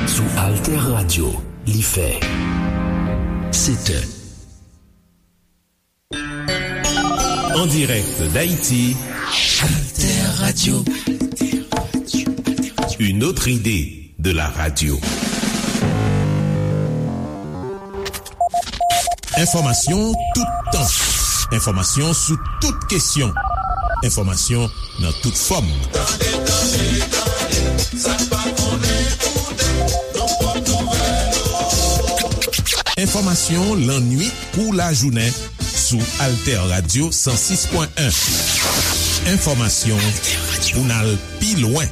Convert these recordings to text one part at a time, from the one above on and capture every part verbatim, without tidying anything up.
Sou Alter Radio, li fè sèt è. En direct d'Haïti, Alter Radio. Une autre idée de la radio. Enfòmasyon toutan. Enfòmasyon sou tout kesyon. Enfòmasyon nan tout fòm. Tande, tande, tande, sa n pa konnen koute, nou pran nouvèl yo. Enfòmasyon lannwit kou lajounen sou Alter Radio san sis pwen en. Enfòmasyon pou n al pi lwen.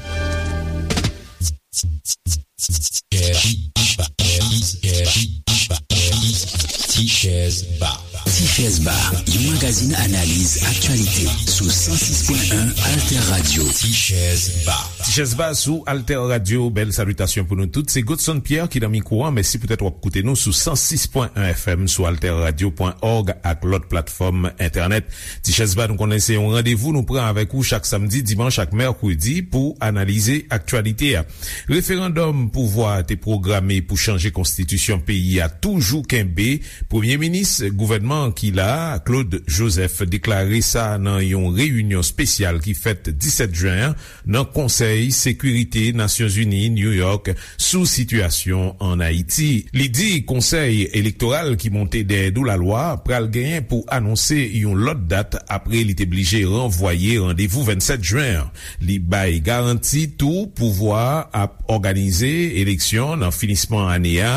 Tichèz Ba. Tichèz Ba, yon magazin analiz aktyalite sou san sis pwen en Alter Radio. Tichèz Ba. Tichèz Ba sou Alter Radio. Bèl salitasyon pou nou tout. Se Godson Pierre ki nan mikwo a. Mèsi poutèt w ap koute nou sou san sis pwen en F M, sou alter radio pwen org ak lòt platfòm entènèt. Tichèz Ba, nou konnen se yon randevou nou pran avèk ou chak samdi, dimanch ak mèkredi pou analize aktyalite a. Referandòm pouvwa a te pwograme pou chanje konstitisyon peyi a toujou kenbe. Premye minis gouvènman ki la a, Claude Joseph, deklare sa nan yon reyinyon espesyal ki fèt disèt jen an nan Konsèy Sekirite Nasyonzini, New York, sou sitiyasyon ann Ayiti. Li di konsèy elektoral ki monte dèyè do lalwa pral genyen pou anonse yon lòt dat apre li te blije ranvwaye randevou vennsèt jen an. Li bay garanti tou pouvwa a ap òganize eleksyon nan finisman ane a,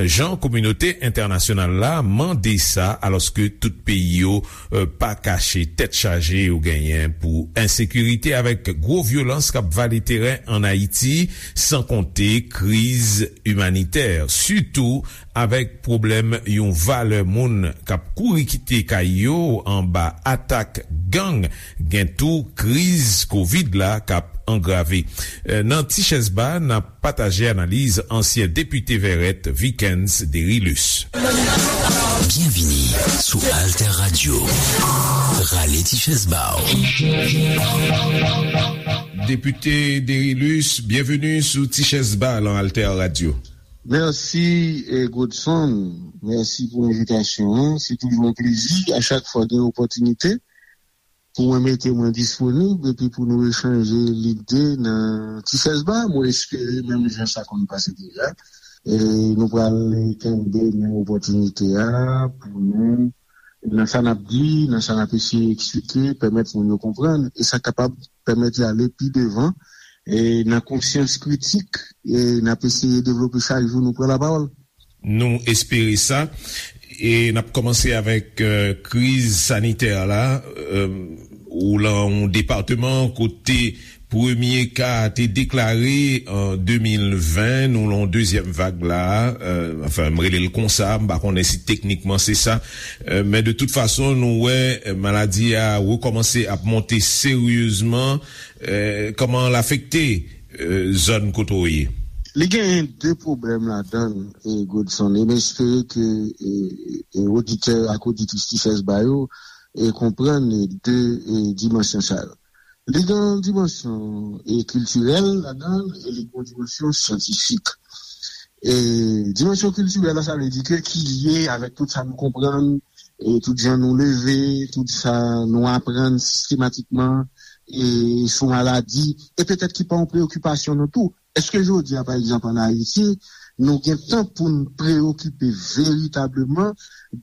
jan kominote entènasyonal la mande sa, alòske tout peyi yo, eh, pa kache tèt chaje yo genyen pou ensekirite avèk gwo vyolans k ap vale teren ann Ayiti, san konte kriz imanitè, sitou avèk pwoblèm yon valè moun k ap kouri kite kay yo anba atak gang, gen tou kriz kovid la k ap angrave. Eh, nan Tichèz Ba, n ap pataje analiz ansyen depite Vèrèt, Vikens Derilus. Byenvini sou Alter Radio. Rale Tichèz Ba w. Depite Derilus, byenveni sou Tichèz Ba nan Alter Radio. Mèsi, eh, Godson. Mèsi pou envitasyon an. Se toujou yon plezi a chak fwa gen opòtinite pou mwen mete mwen disponib epi pou nou echanje lide nan Tichèz Ba. Mwen espere menm jan sa konn pase deja. E nou pral kenbe menm opòtinite a pou nou, nan sa n ap di, nan sa n ap eseye eksplike, pèmèt moun yo konprann, e sa kapab pèmèt y ale pi devan, e nan konsyans kritik, e n ap eseye devlope chak jou nou pran lapawòl. Nou espere sa. E n ap kòmanse avèk, eh, kriz sanitè la. Eh, ou lan yon depatman kote premye ka a te deklare an de mil ven, nou lan yon dezyèm vag la. Eh, anfen, m rele l konsa, m pa konnen si teknikman se sa. Eh, men de tout fason, nou wè, eh, maladi a rekòmanse ap monte seryezman. Eh, kòman l afekte, eh, zòn kote w ye? Li genyen de pwoblèm ladan l, eh, Godson, e m espere ke, eh, eh, oditè ak oditris Tichèz Ba yo, eh, konprann, eh, de, eh, dimansyon sa yo. Li gen yon dimansyon, eh, kiltirèl ladan l, e li gen yon dimansyon syantifik. E dimansyon kiltirèl la, sa vle di ke ki lye avèk tout sa nou konprann, e tout jan nou leve, tout sa nou aprann sistematikman, e sou maladi, e petèt ki pa yon preyokipasyon nou tou. Èske jodi a, pa egzanp, ann Ayiti, nou gen tan pou n preyokipe veritableman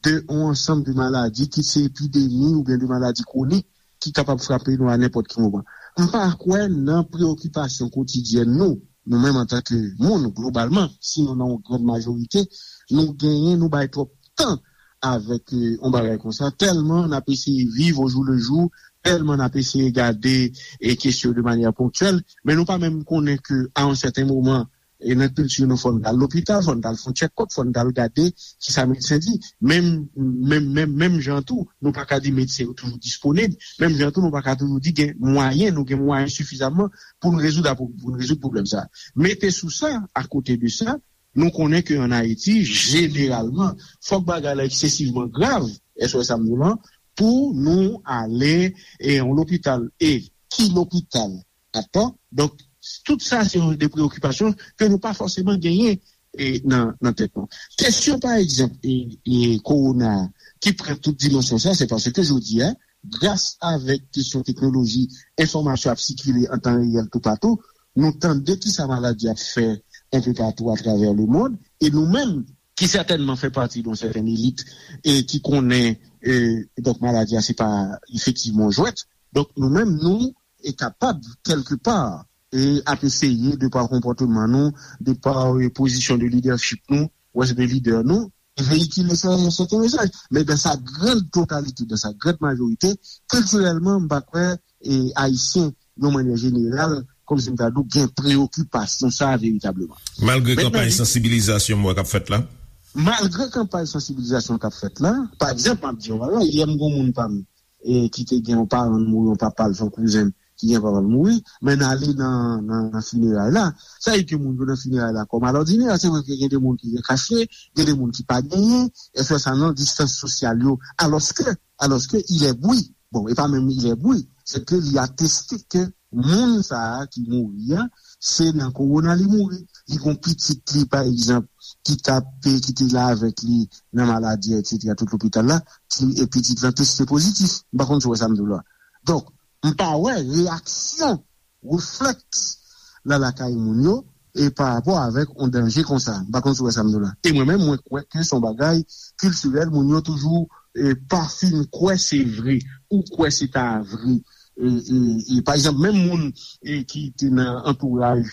de yon ansanm de maladi, kit se epidemi oubyen de maladi kwonik, ki kapab frape nou a nenpòt ki moman? M pa kwè nan preyokipasyon kotidyèn nou, nou menm antanke moun, globalman, sinon nan yon grann majorite, nou genyen, nou bay twòp tan avèk, eh, yon bagay konsa, tèlman n ap eseye viv au jour le jour, tèlman n ap eseye gade, eh, kesyon de manyè ponktyèl, men nou pa menm konnen ke a yon sèten moman, E nan kilti nou, fò n t al lopital, fò n t al fè yon tchèkòp, fò n t al gade ki sa medsen di. Menm, menm, menm, menm jan tou, nou pa ka di medsen yo toujou disponib. Menm jan tou, nou pa ka toujou di gen mwayen, nou gen mwayen sifizaman pou n rezoud, pou n rezoud pwoblèm sa a. Mete sou sa, akote de sa, nou konnen ke ann Ayiti, jeneralman, fòk bagay la eksesivman grav, èske w wè sa m di w lan, pou nou ale e yon lopital. E ki lopital? Dakò? Donk, tout sa se de preyokipasyon ke nou pa fòseman genyen e, nan, nan tèt nou. Kesyon, pa egzanp, e, e, kowona a, ki pran tout dimansyon sa, se paske jodi a, gras avèk kesyon teknoloji, enfòmasyon ap sikile an tan reyèl toupatou, nou tande ki sa maladi ap fè enpe patou atravè lemonn, e nou menm, ki sètènman fè pati de yon sètèn elit e ki konnen, e, donk, maladi a se pa efektivman yon jwèt. Donk, nou menm, nou e kapab, kèlke pa, e ap eseye, de pa konpòteman nou, de pa, e, pozisyon de lidèchip nou, wè se de lidè nou, veyikile sè- sèten mesaj. Men dans sa grande totalité, dans sa grande majorité, kiltirèlman, m pa kwè, e, Ayisyen, yon mannyè jeneral, kòmsi m ta di w, gen preyokipasyon sa a veritableman. Malgre Mentnan, kanpay li- sansibilizasyon m wè k ap fèt la? Malgre kanpay sansibilizasyon k ap fèt la, pa egzanp, m ap di w, alò, yè m gen yon moun pa m, e, ki te gen yon paran l mouri, yon papa l, se yon kouzen m, ki gen papa l mouri, men n ale nan, nan, nan fineray la. Sa vle di ke moun yo nan fineray la, kòm alòdinè, se vre ke gen de moun ki gen kache, gen de moun ki pa genyen, e fè sa nan distans sosyal yo, alòske, alòske il est bri. Bon, e pa menm il est bri, se ke li ateste ke moun sa a ki mouri a, se nan kowona li mouri. Li gon pitit li, pa egzanp, ki t ap, ki te la avèk li nan maladi a, etsetera, tout lopital la, ki, e pitit lan teste pozitif. M pa konn si w wè sa m di w la. Donk, m pa wè reyaksyon, reflèks la lakay moun yo, e pa rapò avèk yon danje konsa. M pa konn si w wè sa m di w la. E mwen menm, mwen kwè ke se yon bagay kiltirèl, moun yo toujou, e, pa fin kwè se vre, ou kwè se ta vre. E, e, e, pa egzanp, menm moun, e, ki te nan antouraj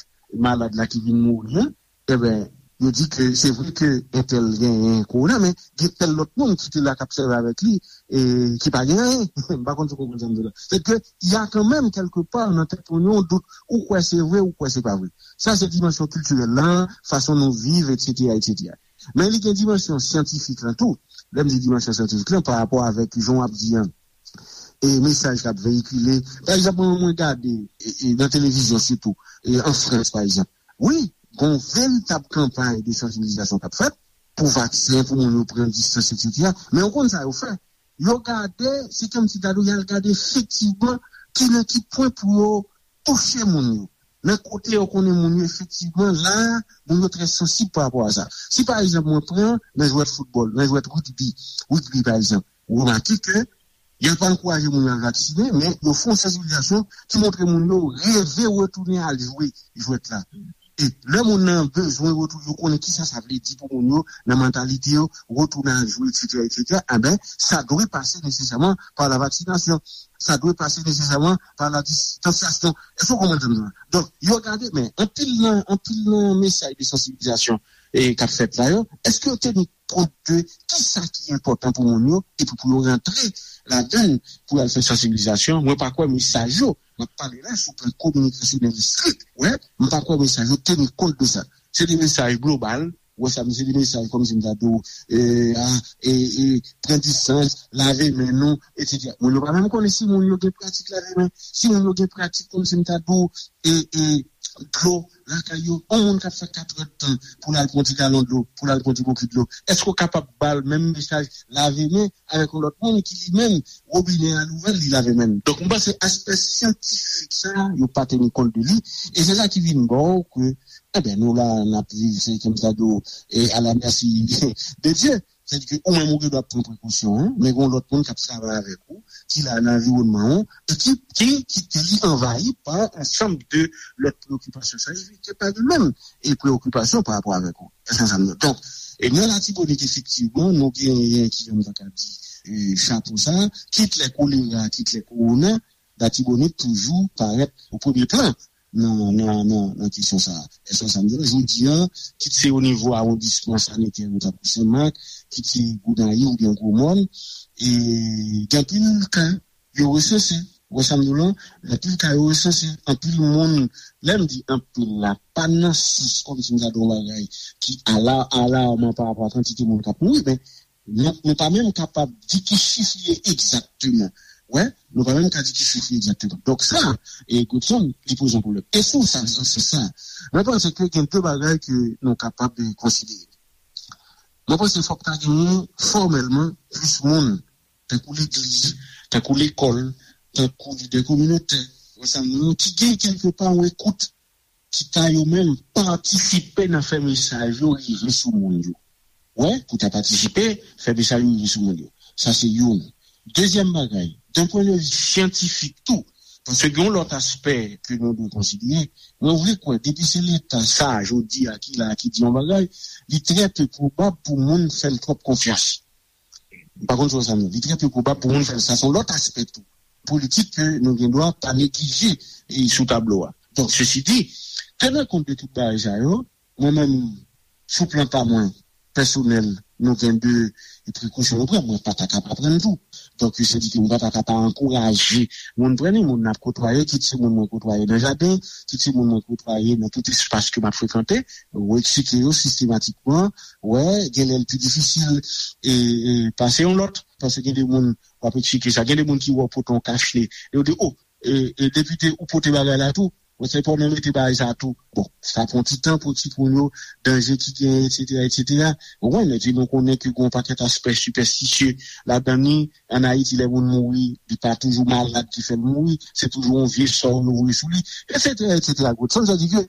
malad la ki vin mouri an, enben, yo di ke se vre ke entèl genyen kowona, men gen tèl lòt moun ki te la k ap sèvi avèk li, e ki pa gen anyen. M pa konn si w konprann sa m di w la. Se ke, y a kanmenm, kèlke pa, nan tèt moun yo, yon dout, ou kwè se vre, ou kwè se pa vre. Sa se dimansyon kiltirèl lan, fason nou viv, etsetera, etsetera. Men li gen dimansyon syantifik lan tou. Lè m di dimansyon syantifik lan, pa rapò avèk jan w ap di an, e mesaj k ap veyikile. Pa egzanp, mwen, mwen gade, e, e, nan televizyon sitou, e, an Frans, pa egzanp. Wi, gon veritab kanpay de sansibilizasyon k ap fèt pou vaksen, pou moun yo pran distans, etsetera. Men ou konn sa yo fè? Yo gade, se kòmsi ta di w, y al gade efektivman ki nan ki pwen pou yo touche moun yo. Nan kote yo konnen moun yo efektivman la, moun yo trè sansib pa rapò a sa. Si pa egzanp, mwen pran nan jwèt foutbòl, nan jwèt rigbi, rigbi pa egzanp, ou remake ke y ap ankouraje moun yo al vaksinen, men yo fè yon sansibilizasyon ki montre moun yo reve retounen al jwe jwèt la. E lè moun nan bezwen retounen, yo konnen kisa sa vle di pou moun yo, nan mantalite yo, retounen al jwe, etsetera, etsetera, enben, sa dwe pase nesesèman pa la vaksinasyon. Sa dwe pase nesesèman pa la distansyasyon. Èske w konprann sa m di w la? Donk, yo gade, men anpil nan, anpil nan mesaj de sansibilizasyon, e, k ap fèt la yo, èske yo teni kont de kisa ki enpòtan pou moun yo, epi pou yo rantre ladan l, pou y al fè sansibilizasyon? Mwen pa kwè mesaj yo, m ap pale la sou plan kominikasyonèl estrik, wè, m pa kwè mesaj yo teni kont de sa. Se de mesaj global, wè sa, se de mesaj kòmsi m ta di w, e, a, e, e, pran distans, lave men nou, etsetera. Moun yo pa menm konnen si moun yo gen pratik lave men, si moun yo gen pratik kòmsi m ta di w, e, e, dlo lakay yo. Yon moun k ap fè katrè tan pou l al pran ti galon dlo, pou l al pran ti bokit dlo, èske w kapab ba l menm mesaj lave men avèk yon lòt moun ki li menm, wobinè a louvè l, li lave men l? Donk, m panse aspè syantifik sa a, yo pa teni kont de li, e se sa ki vin ba w ke, enben, nou la, n ap viv, se kòmsi ta di w, e à la merci de Dieu. Sètadi ke ou menm ou gen dwa pran prekosyon an, men gen yon lòt moun k ap travay avèk ou, ki la nan anviwònman ou, e ki, ki kite li anvayi pa ansanm de lòt preyokipasyon. Sa vle di ke pa li menm e preyokipasyon pa rapò avèk ou. Èske sa m di? Donk, e nan Latibonit, efektivman, nou genyen, ki jan m ta ka di, e, chapo sa, kit lè kolera, kit lè kowona, Latibonit toujou parèt o premye plan nan, nan, nan, nan kesyon sa a. Èske sa m di w la, jodi a, kit se o nivo awondisman sanitè yo, tankou Senmak, kit se Gonayiv oubyen Gwomòn, e gen anpil ka yo resanse. Ou wè sa m di w lan? Anpil ka yo resanse, anpil moun, lè m di anpil la, pa nan sans kòmsi m ta di yon bagay ki ala, alarman pa rapò a kantite moun k ap mouri, men nou, nou pa menm kapab di ki chif li ye egzakteman. Wè, nou pa menm ka di ki chif li ye egzakteman. Donk sa, e Godson, li poze yon pwoblèm. E sou sa, sou sa, mwen panse ke gen de bagay ke nou kapab, e, konsidere. Mwen panse fòk ta genyen fòmèlman plis moun, tankou legliz, tankou lekòl, tankou lidè kominotè, wè sa m di w, ki gen kèlke pa yon ekout ki ta yo menm patisipe nan fè mesaj yo rive sou moun yo. Wè, pou ta patisipe, fè mesaj yo rive sou moun yo. Sa se youn. Dezyèm bagay, d'un point de vue syantifik tou, paske gen yon lòt aspè ke nou dwe konsidere, mwen vle kwè, depi se Leta sa, jodi a, ki la, ki di yon bagay, li trè pe pwobab pou moun fè l twòp konfyans. M pa konn si w wè sa m di. Li trè pe pwobab pou moun fè l. Sa se yon lòt aspè tou politik ke nou gen dwa pa neglije, e, sou tablo a. Donk, sesi di, tenan kont de tout bagay sa yo, mwen menm, sou plan pa mwen, pèsonèl, nou gen de prekosyon nou pran. Mwen pa ta ka pa pran l tou. Donk, sa di ke mwen pa ta ka pa ankouraje moun pran li, moun n ap kotwaye, kit se moun mwen kotwaye nan jaden, kit se moun mwen kotwaye nan tout espas ke m ap frekante, ou eksplike yo sistematikman, wè, gen lè l pi difisil, e, e, pase yon lòt, paske gen de moun w ap eksplike sa, gen de moun ki wè w pote yon kach ne, yo di, o, e, e, depite, ou pote bagay la tou, ou se pa w nan mete bagay sa tou. Bon, sa pran ti tan pou timoun yo, danje ki genyen, etsetera, etsetera. Ou konprann, epi nou konnen ke gen yon pakèt aspè sipèstisye ladan li. Ann Ayiti, lè moun mouri, li pa toujou malad ki fè l mouri, se toujou yon vye sò yo voye sou li, etsetera, etsetera. Sa vle di ke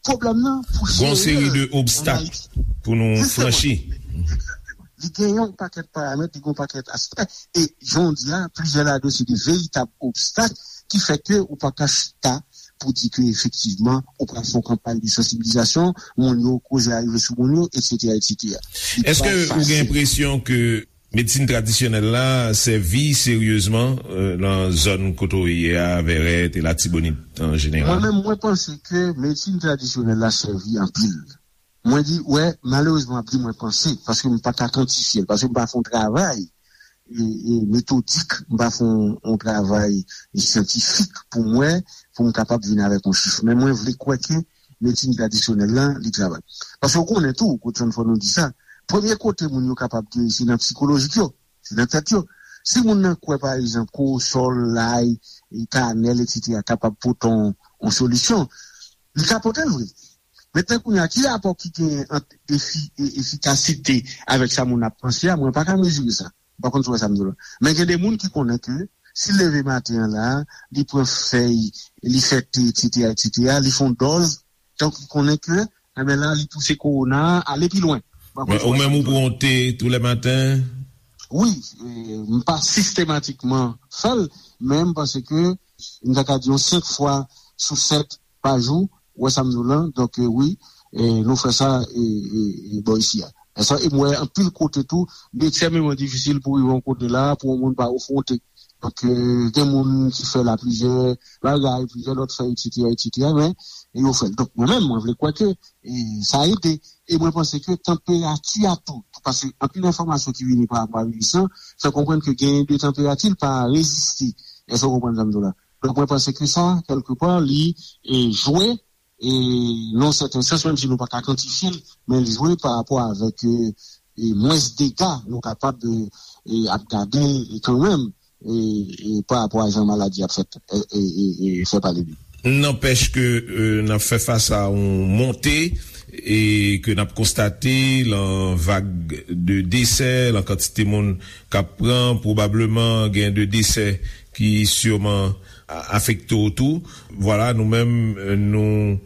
pwoblèm nan pou jere l ann Ayiti. Gon seri de obstak pou nou franchi. Egzakteman. Li gen yon pakèt paramèt, li gen yon pakèt aspè. E jan w di a, plizyè ladan yo se de veritab obstak ki fè ke ou pa ka chita pou di ke efektivman ou pral fè yon kanpay de sansibilizasyon, moun yo koze a rive sou moun yo, etsetera, etsetera. Èske ou gen enpresyon ke medsin tradisyonèl la sèvi seryezman, euh, nan zòn kote w ye a, Vèrèt e Latibonit an jeneral? Mwen menm, mwen panse ke medsin tradisyonèl la sèvi anpil. Mwen di, wè, malerezman, m ap di mwen panse, paske m pa ka kantifye l, paske m pa fè yon travay, e, e, metodik, m pa fè yon, yon travay syantifik pou m wè, pou m kapab vin avèk yon chif. Men mwen vle kwè ke medsin tradisyonèl la, li travay. Paske w konnen tou, Godson, fò nou di sa, premye kote moun yo kapab geri, se nan sikolojik yo, se nan tèt yo. Si moun nan kwè, pa egzanp, kowosòl, lay, e, kanèl, etsetera, kapab pote yon, yon solisyon, li ka pote l vre. Mentnan kounye a, ki rapò ki genyen ant efi-, e-, efikasite avèk sa moun ap panse a? Mwen pa ka mezire sa. M pa konn si w wè sa m di w la. Men gen de moun ki konnen ke si l leve maten an la, li pran fèy, li fè te, etsetera, etsetera, li fè yon dòz, donk li konnen ke, enben la, li pouse kowona a ale pi lwen. M pa konn si w wè sa m di w la. Ou menm ou pran te tou lè maten? Wi, e, m pa sistematikman fè l, men m panse ke m ta ka di yon senk fwa sou sèt pa jou, ou wè sa m di w lan, donk, e, wi, e, nou fè sa, e, e, e, bò isi a. E sa, e m wè anpil kote tou, li ekstrèmeman difisil pou rive yon kote la, pou yon moun pa ofwonte. Donk, e, gen moun ki fè la plizyè bagay, plizyè lòt fè, etsetera, etsetera, men, e yo fè l. Donk, mwen menm, mwen vle kwè ke, e, sa ede. E mwen panse ke tanperati a tou, paske anpil enfòmasyon ki vini pa rapò a viris lan, fè konprann ke genyen de tanperati, l pa reziste. Èske w konprann sa m di w la? Donk, mwen panse ke sa, kèlkepa, li, e, jwe, e, nan yon sèten sans, menm si nou pa ka kantifye l, men li jwe pa rapò avèk, e, e, mwens dega nou kapab, e, e, ap gade, e, kanmenm, e, e, pa rapò a jan maladi ap fèt, e, e, e, e, fè pale de li. Nanpèch ke, e, n ap fè fas a yon monte, e ke n ap konstate lan vag de desè, lan kantite moun k ap pran, pwobableman gen de desè ki siman a-, afekte w tou. Vwala, nou menm, e, nou,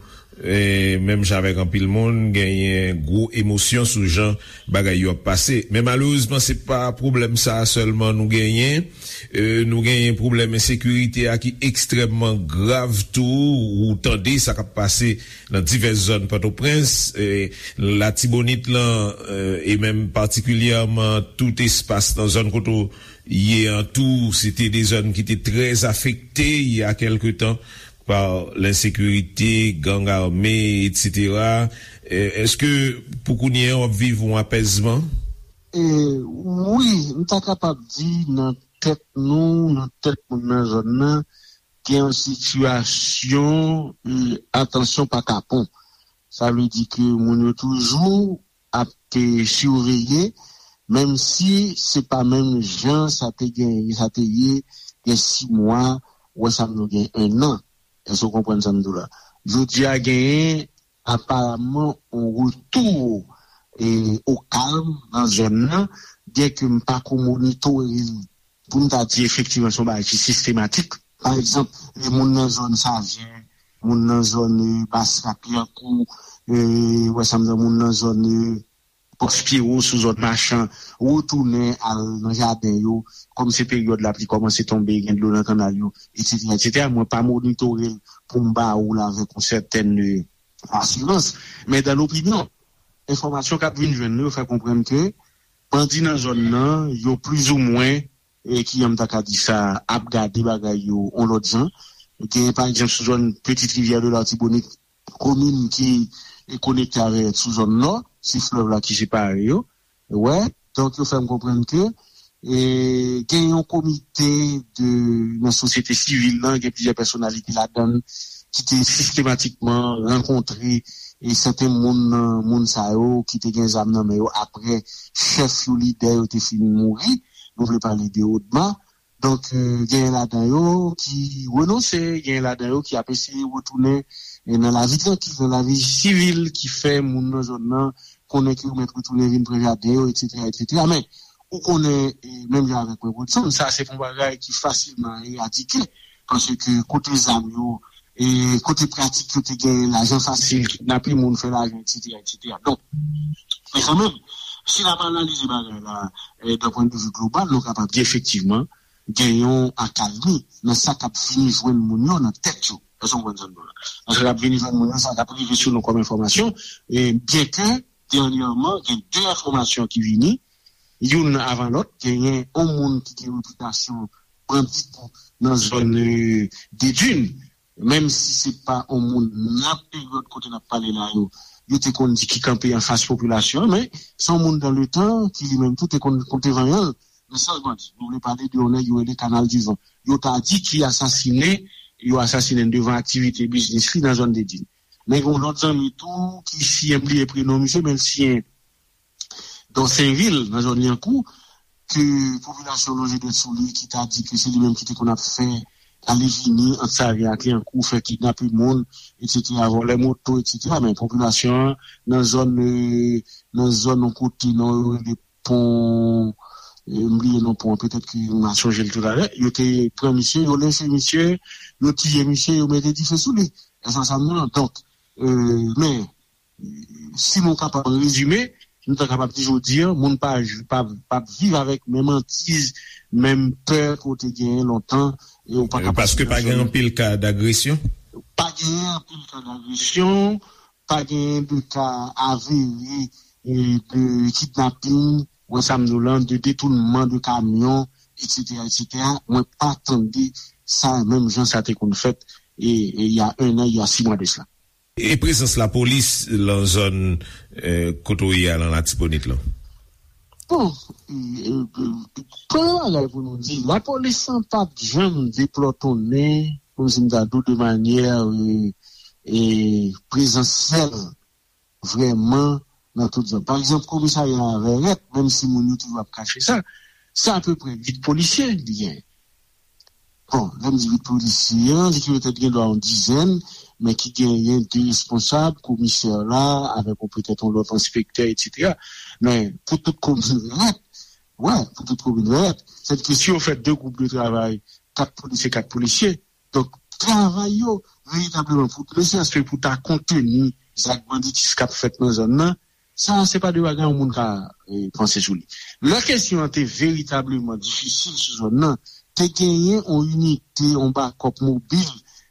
e, menm jan avèk anpil moun, genyen gwo emosyon sou jan bagay yo ap pase. Men malerezman, se pa pwoblèm sa a sèlman nou genyen. E, nou genyen pwoblèm ensekirite a ki ekstrèmman grav tou. Ou tande sa k ap pase nan divès zòn Pòtoprens, e, Latibonit lan, e, e menm patikilyèman tout espas nan zòn kote w ye an tou, se te de zòn ki te trè afekte il y a quelque temps par l'insécurité, gang armé, etsetera. E, èske pou kounye a w ap viv yon apèzman? E, wi, m ta kapab di nan tèt nou, nan tèt moun nan zòn nan, gen yon sitiyasyon, e, atansyon pa kapon. Sa vle di ke moun yo toujou ap, e, siveye, menm si se pa menm jan sa te gen, sa te ye, gen sis mwa, ou wè sa m di w, gen ennan. Èske w konprann sa m di w la? Jodi a genyen aparamman yon retou, e, o kalm nan zòn nan, byenke m pa ko monitore l pou m ta di efektivman se yon bagay ki sistematik. Pa egzanp, e, moun nan zòn Sajè, moun nan zòn, e, Bas Lapyankou, e, wè sa m di, moun nan zòn, e, Pòs Pyewo, sou zòn Machan, retounen al nan jaden yo, kòm se peryòd lapli kòmanse tonbe, gen dlo nan kannal yo, etsetera, etsetera. Mwen pa monitore l pou m ba ou l avèk yon sètèn, e, asirans. Men dan lopinyon, enfòmasyon k ap vin jwenn nou yo fè konprann ke bandi nan zòn nan, yo plizoumwen, e, kijan m ta ka di sa, ap gade bagay yo yon lòt jan. Gen, pa egzanp, sou zòn Petite Rivière de l'Artibonite, komin ki, e, konekte avè sou zòn nò, se flèv la ki separe yo. Wè, donk yo fè m konprann ke, e, gen yon komite de, nan sosyete sivil lan, gen plizyè pèsonalite ladan l ki te sistematikman rankontre, e, sèten moun nan moun sa yo ki te gen zam nan men yo apre chèf yo, lidè yo te fin mouri. Nou vle pale de Odma. Donk, e, genyen ladan yo ki renonse, genyen ladan yo ki ap eseye retounen, e, nan lavi trankil, nan lavi sivil, ki fè moun nan zòn nan konnen ke yo mèt retounen vin pran jaden yo, etsetera, etsetera. Men, ou konnen, e, menm jan avèk mwen, Godson, sa se pa yon bagay ki fasilman eradike, paske kote zam yo, e, kote pratik yo te gen lajan fasil, kidnape moun, fè lajan, etsetera, etsetera. Donk, men kanmenm, si n ap analize bagay la, e, d'un point de vue global, nou kapab di efektivman, gen yon akalmi nan sa k ap vini jwenn moun yo nan tèt yo. Èske w konprann sa m di w la? Nan sa k ap vini jwenn moun yo, sa k ap rive sou nou kòm enfòmasyon, e, byenke dènyèman, gen de enfòmasyon ki vini, youn avan lòt, genyen yon moun ki gen repitasyon bandi tou nan zòn, e, Dedin, menm si se pa yon moun nan peryòd kote n ap pale la yo, yo te konn di ki kanpe anfas popilasyon an, men se yon moun dan letan ki li menm tou te konn konte vanyan l nan sanjman di. Nou vle pale de yon nèg yo rele Kanal di Van. Yo ta di ki asasinen, yo asasinen devan aktivite biznis li nan zòn Dedin. Men gen yon lòt zanmi tou ki siyen, m bliye prenon misye, men l siyen Dòsenvil, nan zòn Lyankou, ke popilasyon lonje dwèt sou li, ki ta di ke se li menm ki te konn ap fè ale vini ant Savyen ak Lyankou, fè kidnape moun, etsetera, vòlè moto, etsetera. Men popilasyon an, nan zòn, e, nan zòn yon kote, non, yo rele pon, e, m bliye non pon an, petèt ke m a sonje l toutalè, yo te pran misye, yo lenche misye, yo tiye misye, yo mete dife sou li. Èske w konprann sa m di w lan? Donk, e, men, si nou kapab rezime, nou ta kapab di jodi a, moun pa, pa, pa viv avèk menm antiz, menm pè ke w te genyen lontan, e w pa kapab. Paske pa gen anpil ka dagresyon? Pa gen anpil ka dagresyon, pa gen de ka avere, e, de kidnaping, wè sa m di w lan, de detounman de kamyon, etsetera, etsetera. Mwen pa tande sa menm jan sa te konn fèt, e, e, il y a un an, il y a six mois de cela. E prezans lapolis lan zòn, e, kote w ye a lan Latibonit lan? Bon, e, e, e, premye bagay pou nou di, lapolis lan pa t janm deplòtonnen, kòmsi m ta di w, de manyè, e, e, prezansyèl, vrèman, nan tout zòn. Pa egzanp, komisarya a Vèrèt, menm si moun yo toujou ap kache sa, se apeprè uit polisye li genyen. Bon, lè m di uit polisye an, li ki petèt gen dwa yon dizèn, men ki genyen de responsab, komisè la, avèk yon petèt yon lòt enspektè, etsetera. Men, pou tout komin Vèrèt, wè, pou tout komin Vèrèt, sètadi ke si yo fè de gwoup de travay, kat polisye, kat polisye, donk, travay yo, veritableman, pou, ne serait-ce que pou ta konteni zak banditis k ap fèt nan zòn nan, sa, se pa de bagay yon moun ka, e, panse sou li. Lè kesyon an te veritableman difisil sou zòn nan, te genyen yon inite, yon bakòp mobil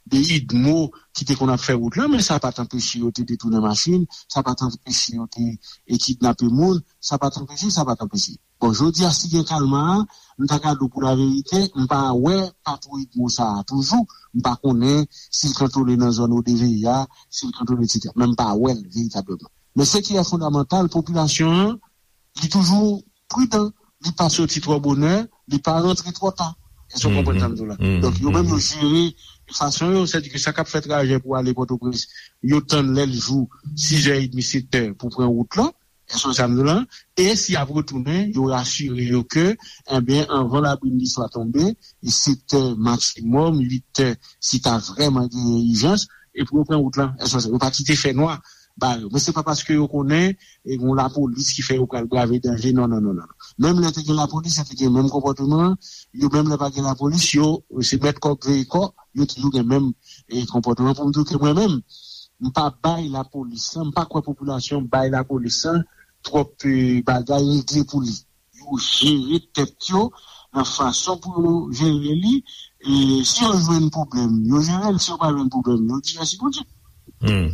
de UDMO ki te konn ap fè wout lan, men sa pa t anpeche yo te detounen machin, sa pa t anpeche yo te, e, kidnape moun, sa pa t anpeche, sa pa t anpeche. Bon, jodi a, si gen kalma a, m ta ka di w pou laverite, m pa wè patwouy UDMO sa a toujou, m pa konnen si l kantone nan zòn O D V I a, si l kantone, etsetera. Men m pa wè l veritableman. Men se ki e fondamantal, popilasyon an, li toujou pridan, li pa soti twò bonè, li pa rantre twò ta. Èske w konprann sa m di w la? Donk, yo menm yo jere, fason yo, sètadi ke sa k ap fè trajè pou ale Pòtoprens, yo tann lè l jou, sizè edmi, setè pou pran wout lan, èske w wè sa m di w la? E si y ap retounen, yo rasire yo ke, ebyen, anvan labrin li swa tonbe, e setè maksimòm, uitè, si ta vrèman genyen ijans, e pou yo pran wout lan, èske w wè sa? Yo pa kite fènwa ba yo. Men se pa paske yo konnen e gen lapolis ki fè yo pral brave danje. Non, non, non, non. Menm lè te gen lapolis, yo te gen menm konpòteman an. Yo menm lè pa gen lapolis, yo se mèt kòk veye kò, yo toujou gen menm e, konpòteman. Pou m di w ke mwen menm, m pa bay lapolis lan, m pa kwè popilasyon bay lapolis lan twòp e, bagay regle pou li. Yo jere tèt yo nan fason pou yo jere li. E si yo jwenn pwoblèm, yo jere l. Si yo pa jwenn pwoblèm, yo di mèsi Bondye. Hmm.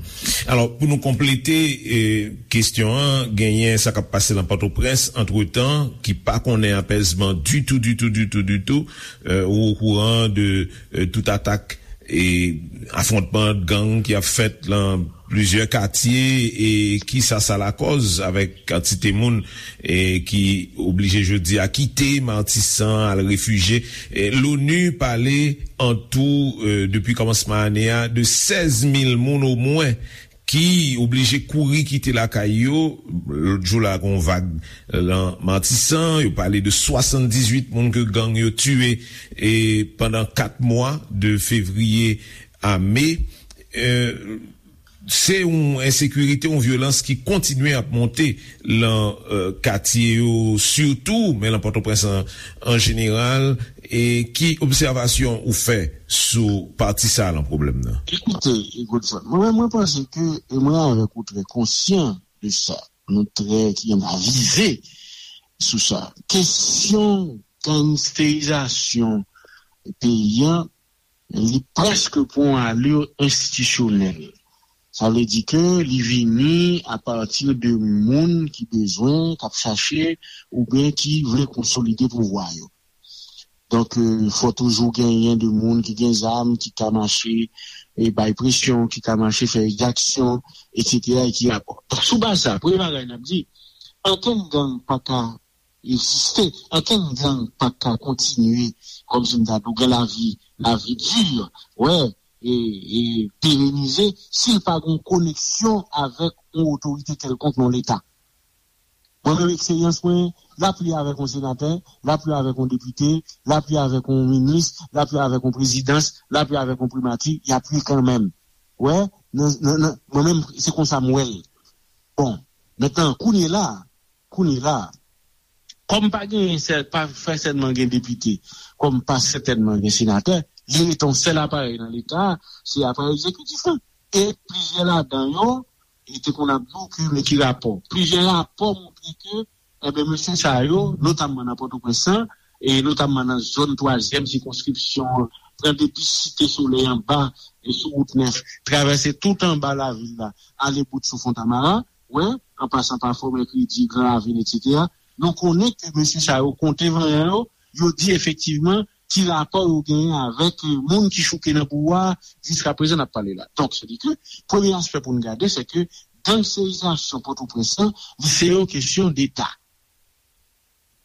Alò, pou nou konplete eh, kesyon an, genyen sa k ap pase nan Pòtoprens, antretan, ki pa konnen apèzman ditou, ditou, ditou, ditou. Eh, ou okouran de eh, tout atak e afwontman gang ki ap fèt lan plizyè katye e kisa sa lakòz avèk kantite moun e ki oblije jodi a kite Matisan al refijye. E L'ONU pale an tou e, depi kòmansman ane a de sèz mil moun omwen ki oblije kouri kite lakay yo. Lòt jou la gen yon vag lan Matisan, yo pale de swasanndizuit moun ke gang yo tiye e pandan kat mwa de fevriye a me. E, se yon ensekirite, yon vyolans ki kontinye ap monte lan e, katye yo sitou, men lan Pòtoprens an, an jeneral. E ki obsèvasyon ou fè sou pati sa lan pwoblèm nan? Ekoute, Godson, mwen, mwen panse ke, e mwen avèk ou trè konsyan de sa, nou trè ki avize sou sa. Kesyon gangsterizasyon peyi an, li prèske pran yon alè enstitisyonèl. Sa vle di ke li vini apati de moun ki bezwen, k ap chache, oubyen ki vle konsolide pouvwa yo. Donk, e, fò toujou genyen de moun ki gen zam, ki ka mache e bay presyon, ki ka mache fè egzaksyon, etsetera, e ki rapò. Donk, sou baz sa, premye bagay n ap di, ankenn gang pa ka egziste, ankenn gang pa ka kontinye, kòmsi m ta di w, gen lavi, lavi di, wè, e, e perenize, si l pa gen yon koneksyon avèk yon otorite kèlkonk nan Leta. Mwen menm, eksperyans mwen, l ap li avèk yon senatè, l ap li avèk yon depite, l ap li avèk yon minis, l ap li avèk yon prezidans, l ap li avèk yon primati, y ap li kanmenm. Wè, nan, nan, nan, mwen menm, se konsa m wè l. Bon, mentnan, kounye la, kounye la, kòm pa genyen sèl, pa fè sèlman gen depite, kòm pa sètènman gen senatè, li rete yon sèl aparèy nan Leta, se aparèy egzekitif lan. E plizyè ladan yo, e te konn ap di w ke men ki rapò. Plizyè rapò montre ke, enben, mesye sa yo, notamman nan Pòtoprens lan, e notamman nan zòn twazyèm sikonskripsyon an, pran depi Site Solèy anba, e sou wout nèf, travèse tout anba lavil la, ale bout sou Fontamara, wè, an pasan pa Fò Mèkredi, Gran Ravin, etsetera. Nou konnen ke mesye sa yo konte vanyan yo, yo di efektivman ki rapò yo genyen avèk eh, moun ki chouke nan pouvwa a, jiskaprezan n ap pale la. Donk, se di ke premye aspè pou n gade, se ke gangsterizasyon Pòtoprens lan, li se yon kesyon deta.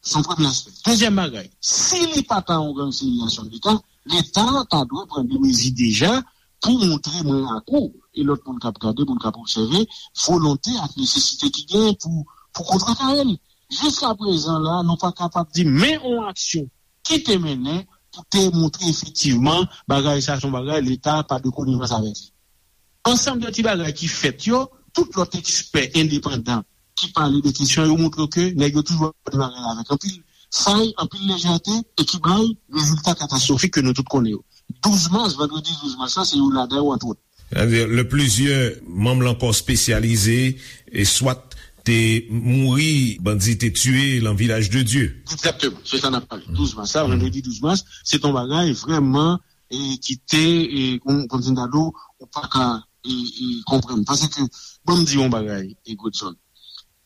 Se yon premye aspè. Dezyèm bagay, si li pa ta yon gangsterizasyon deta, Leta ta dwe pran de mezi deja pou montre mwen ak ou, e lòt moun k ap gade, moun k ap obsève, volonte ak nesesite ki genyen pou, pou kontrekare l. Jiskaprezan la, nou pa kapab di men yon aksyon ki te mennen pou te montre efektivman bagay sa se yon bagay Leta pa de konivans avèk li. Ansanm de ti bagay ki fèt yo, tout lòt ekspè endepandan ki pale de kesyon yo montre ke nèg yo toujou ap gade bagay la avèk anpil fay, anpil lejète, e ki bay rezilta katastwofik ke nou tout konnen yo. Douz mas, vandredi douz mas la, se youn ladan yo, antwòt. Sètadi, lè plizyè manm lan kò espesyalize, e swat te mouri, bandi te tiye lan Vilaj de Dye. Egzakteman, se sa n ap pale. Douz mas la, vandredi douz mas, se t on bagay vrèman e ki te, e, kon, kòmsi m ta di w, ou pa ka e, e, konprann. Paske, ban m di yon bagay, e, Godson.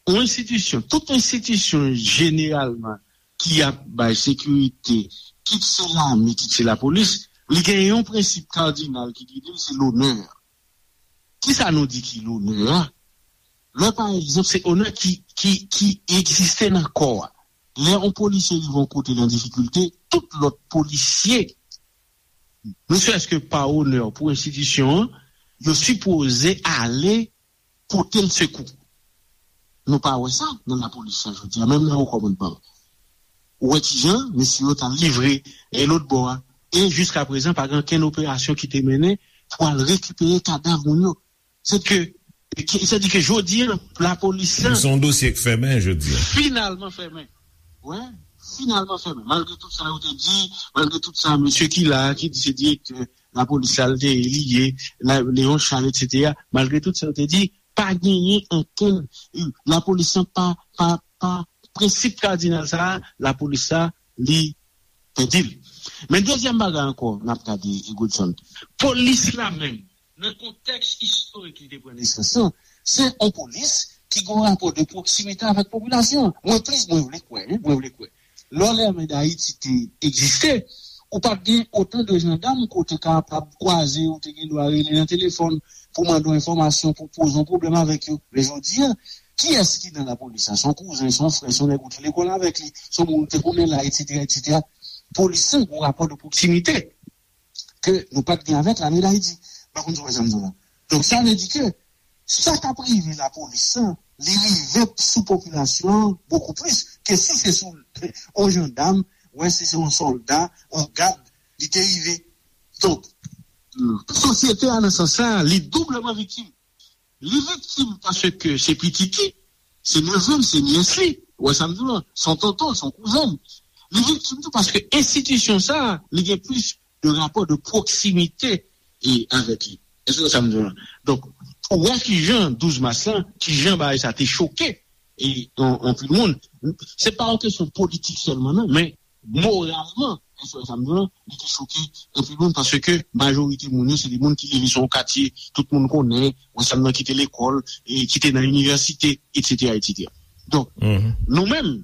Yon enstitisyon, tout enstitisyon jeneralman ki ap bay sekirite, kit se lame, kit se lapolis, li gen yon prensip kadinal ki gide l, se lonè. Kisa nou di ki lonè a? Lè, pa egzanp, se onè ki, ki, ki egziste nan kò a. Lè yon polisye rive yon kote l an difikilte, tout lòt polisye ne serait-ce que par honneur pou enstitisyon an, yo sipoze ale pote l sekou. Nou pa wè sa nan lapolis la jodi a, menm nan wo kòmandman. Ou wè kijan mesye yo t al livre e lòt bò a. E jiska prezan, pa gen okenn operasyon ki te mennen pou al rekipere kadav moun yo. Se ke, ki- se di ke jodi a, lapolis la Se yon dosye k fèmen jodi a. Finalman fèmen. Wè, finalman fèmen. Malgre tout sa yo te di, malgre tout sa, mesye ki la, ki di se direktè lapolis la, l te ye, li ye, la, Léon Charles, et cetera. Malgre tout sa yo te di, pa genyen ankenn, lapolis la pa, pa, pa, prensip kadinal sa a, lapolis la, li pèdi l. Men dezyèm bagay ankò, n ap gade, e Godson. Polis la menm, nan kontèks istorik li te pran nesans lan, se yon polis ki gen yon rapò de pwoksimite avèk popilasyon. Mwen plis, mwen vle kwè, wi, mwen vle kwè. Lè Lame Dayiti te egziste, ou pa t gen otan de jandam ke w te kapab kwaze, ou te gen dwa rele nan telefòn pou mande yon enfòmasyon, pou poze yon pwoblèm avèk yo. Men jodi a, kiyès ki nan lapolis la? Se yon kouzen, se yon frè, se yon nèg ou te lekòl avèk li, se yon moun ou te konnen la, et cetera, et cetera. Polis la gen yon rapò de pwoksimite ke nou pa t gen avèk Lame Dayiti. M pa konn si w wè sa m di w la. Donk, sa vle di ke sa k ap rive lapolis la, li rive sou popilasyon an bokou plis ke si se sou yon jandam, wè, si se yon sòlda, yon gad, li te rive. Donk, sosyete a, nan sans sa, li doubleman viktim. Li viktim paske se pitit li, se nevè l, se nyès li. Ou wè sa m di w lan? Se yon tonton, se yon kouzen l. Li viktim tou paske enstitisyon sa a, li gen plis de rapò de pwoksimite e avèk li. Èske w wè sa m di w lan? Donk, pou wè kijan douz mas lan, kijan bagay sa te choke e an- anpil moun. Se pa yon kesyon politik sèlman, non, men moralman, èske w wè sa m di w lan, li te choke anpil moun paske majorite moun yo, se de moun ki leve sou yon katye, tout moun konnen, ou wè sa m di w lan, ki te lekòl, e ki te nan inivèsite, et cetera, et cetera. Donk, nou menm,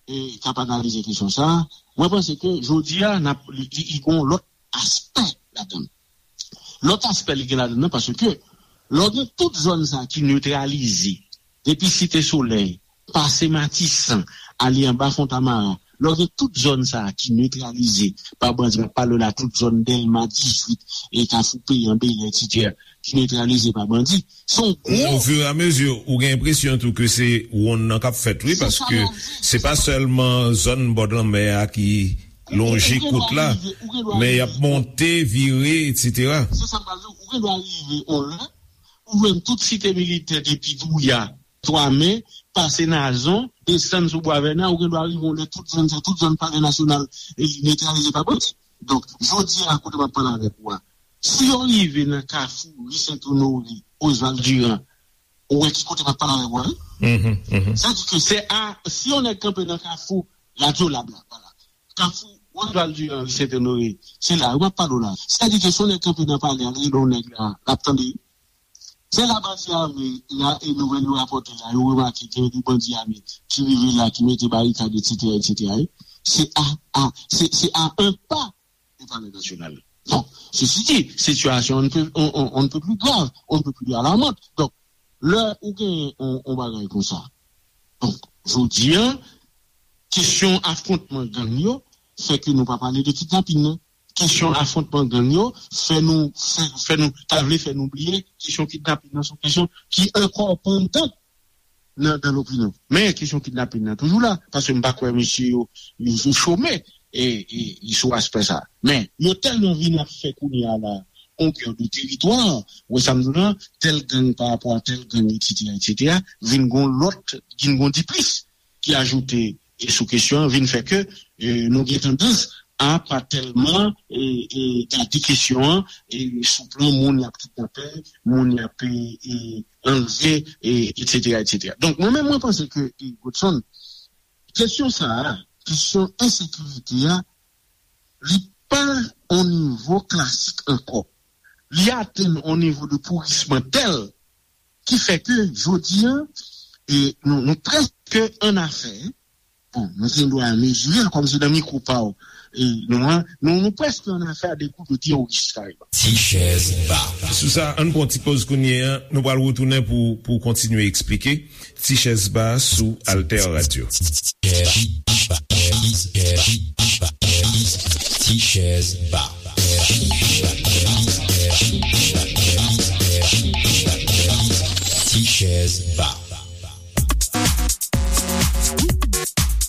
e, k ap analize kesyon sa a, mwen panse ke jodi a, n ap, li, li, li gen yon lòt aspè ladan l. Lòt aspè li gen ladan l nan, paske lè w gen tout zòn sa a ki netralize, depi Site Solèy, pase Matisan, ale anba Fontamara, lè w gen tout zòn sa a ki netralize pa bandi, m ap pale w la tout zòn Dèlma dizuit, e Kafou Peyan, Bèlè, et cetera, ki netralize pa bandi, se yon gwo Ofiramezi, ou gen enpresyon tou ke se wonn nan k ap fèt, wi, paske se pa sèlman zòn bòdlanmè a ki lonje kot la, men y ap monte, vire, et cetera. Se sa m pral di w, ou gen dwa rive yon lè, ou jwenn tout Site Militè depi Douya, Twamen, pase Nazon, desann sou Bwa Vèna, ou gen dwa rive yon lè tout zòn sa, tout zòn Palè Nasyonal, e, netralize pa bandi. Donk, jodi a, kote m ap pale avèk ou a, si yo rive nan Kafou, ri Sent Onore, Oswald Durand, ou wè ki kote m ap pale avèk ou a, wi? Sa di ke se a, si yon nèg kanpe nan Kafou, Radyo Lab la, vwala. Kafou, Oswald Durand, ri Sent Onore, se la, wi, m ap pale w la. Sa di ke si yon nèg kanpe nan Palè a, l rele yon nèg la, l ap tande, wi. Se la bandi ame la, e nouvèl yo rapòte la, yo remake gen de bandi ame ki rive la, ki mete barikad, et cetera, et cetera, wi. Se a, a, se, se a un pas de Palais National. Bon, ceci dit, situation on ne peut, on, on, on ne peut plus grave, on ne peut plus alarmante. Donk, lè ou gen yon, yon bagay konsa. Donk, jodi a, kesyon afwontman gang yo fè ke nou pa pale de kidnapin nan. Kesyon afwontman gang yo fè nou, fè, fè nou, ta vle fè nou bliye kesyon kidnapin nan, se yon kesyon ki ankò pandan nan, nan lopinyon. Men kesyon kidnapin nan toujou la, paske m pa kwè mesye yo, yo, yo chome, e, e, e sou aspè sa. Men yo tèlman vin ap fè kounye a la, konkè de teritwa, ou wè sa m di w lan, tèl gang pa rapò a tèl gang, et cetera, et cetera, vin gon lòt, vin gon diplis ki ajoute e sou kesyon an, vin fè ke, e, nou gen tandans a pa tèlman, e, e, gade kesyon an, e, sou plan moun y ap kidnape, moun y ap, e, e, anlve, e, et cetera, et cetera. Donk, mwen menm, mwen panse ke, e, Godson, kesyon sa a, kesyon ensekirite a, li pa on nivo klasik ankò. Li atenn on nivo de pourisman tèl ki fè ke jodi a, e, nou, nou prèske an afè, bon, nou gen dwa mezire l kòm se nan mikwo pa w, e, nou an, nou, nou prèske an afè a de kou de teworis, kareman. Ti chèz ba. Sou sa, ann pran ti poz kounye a, nou pral retounen pou, pou kontinye eksplike. Ti chèz ba sou Alter Radio. Ti chèz ba. T-Chèz Ba.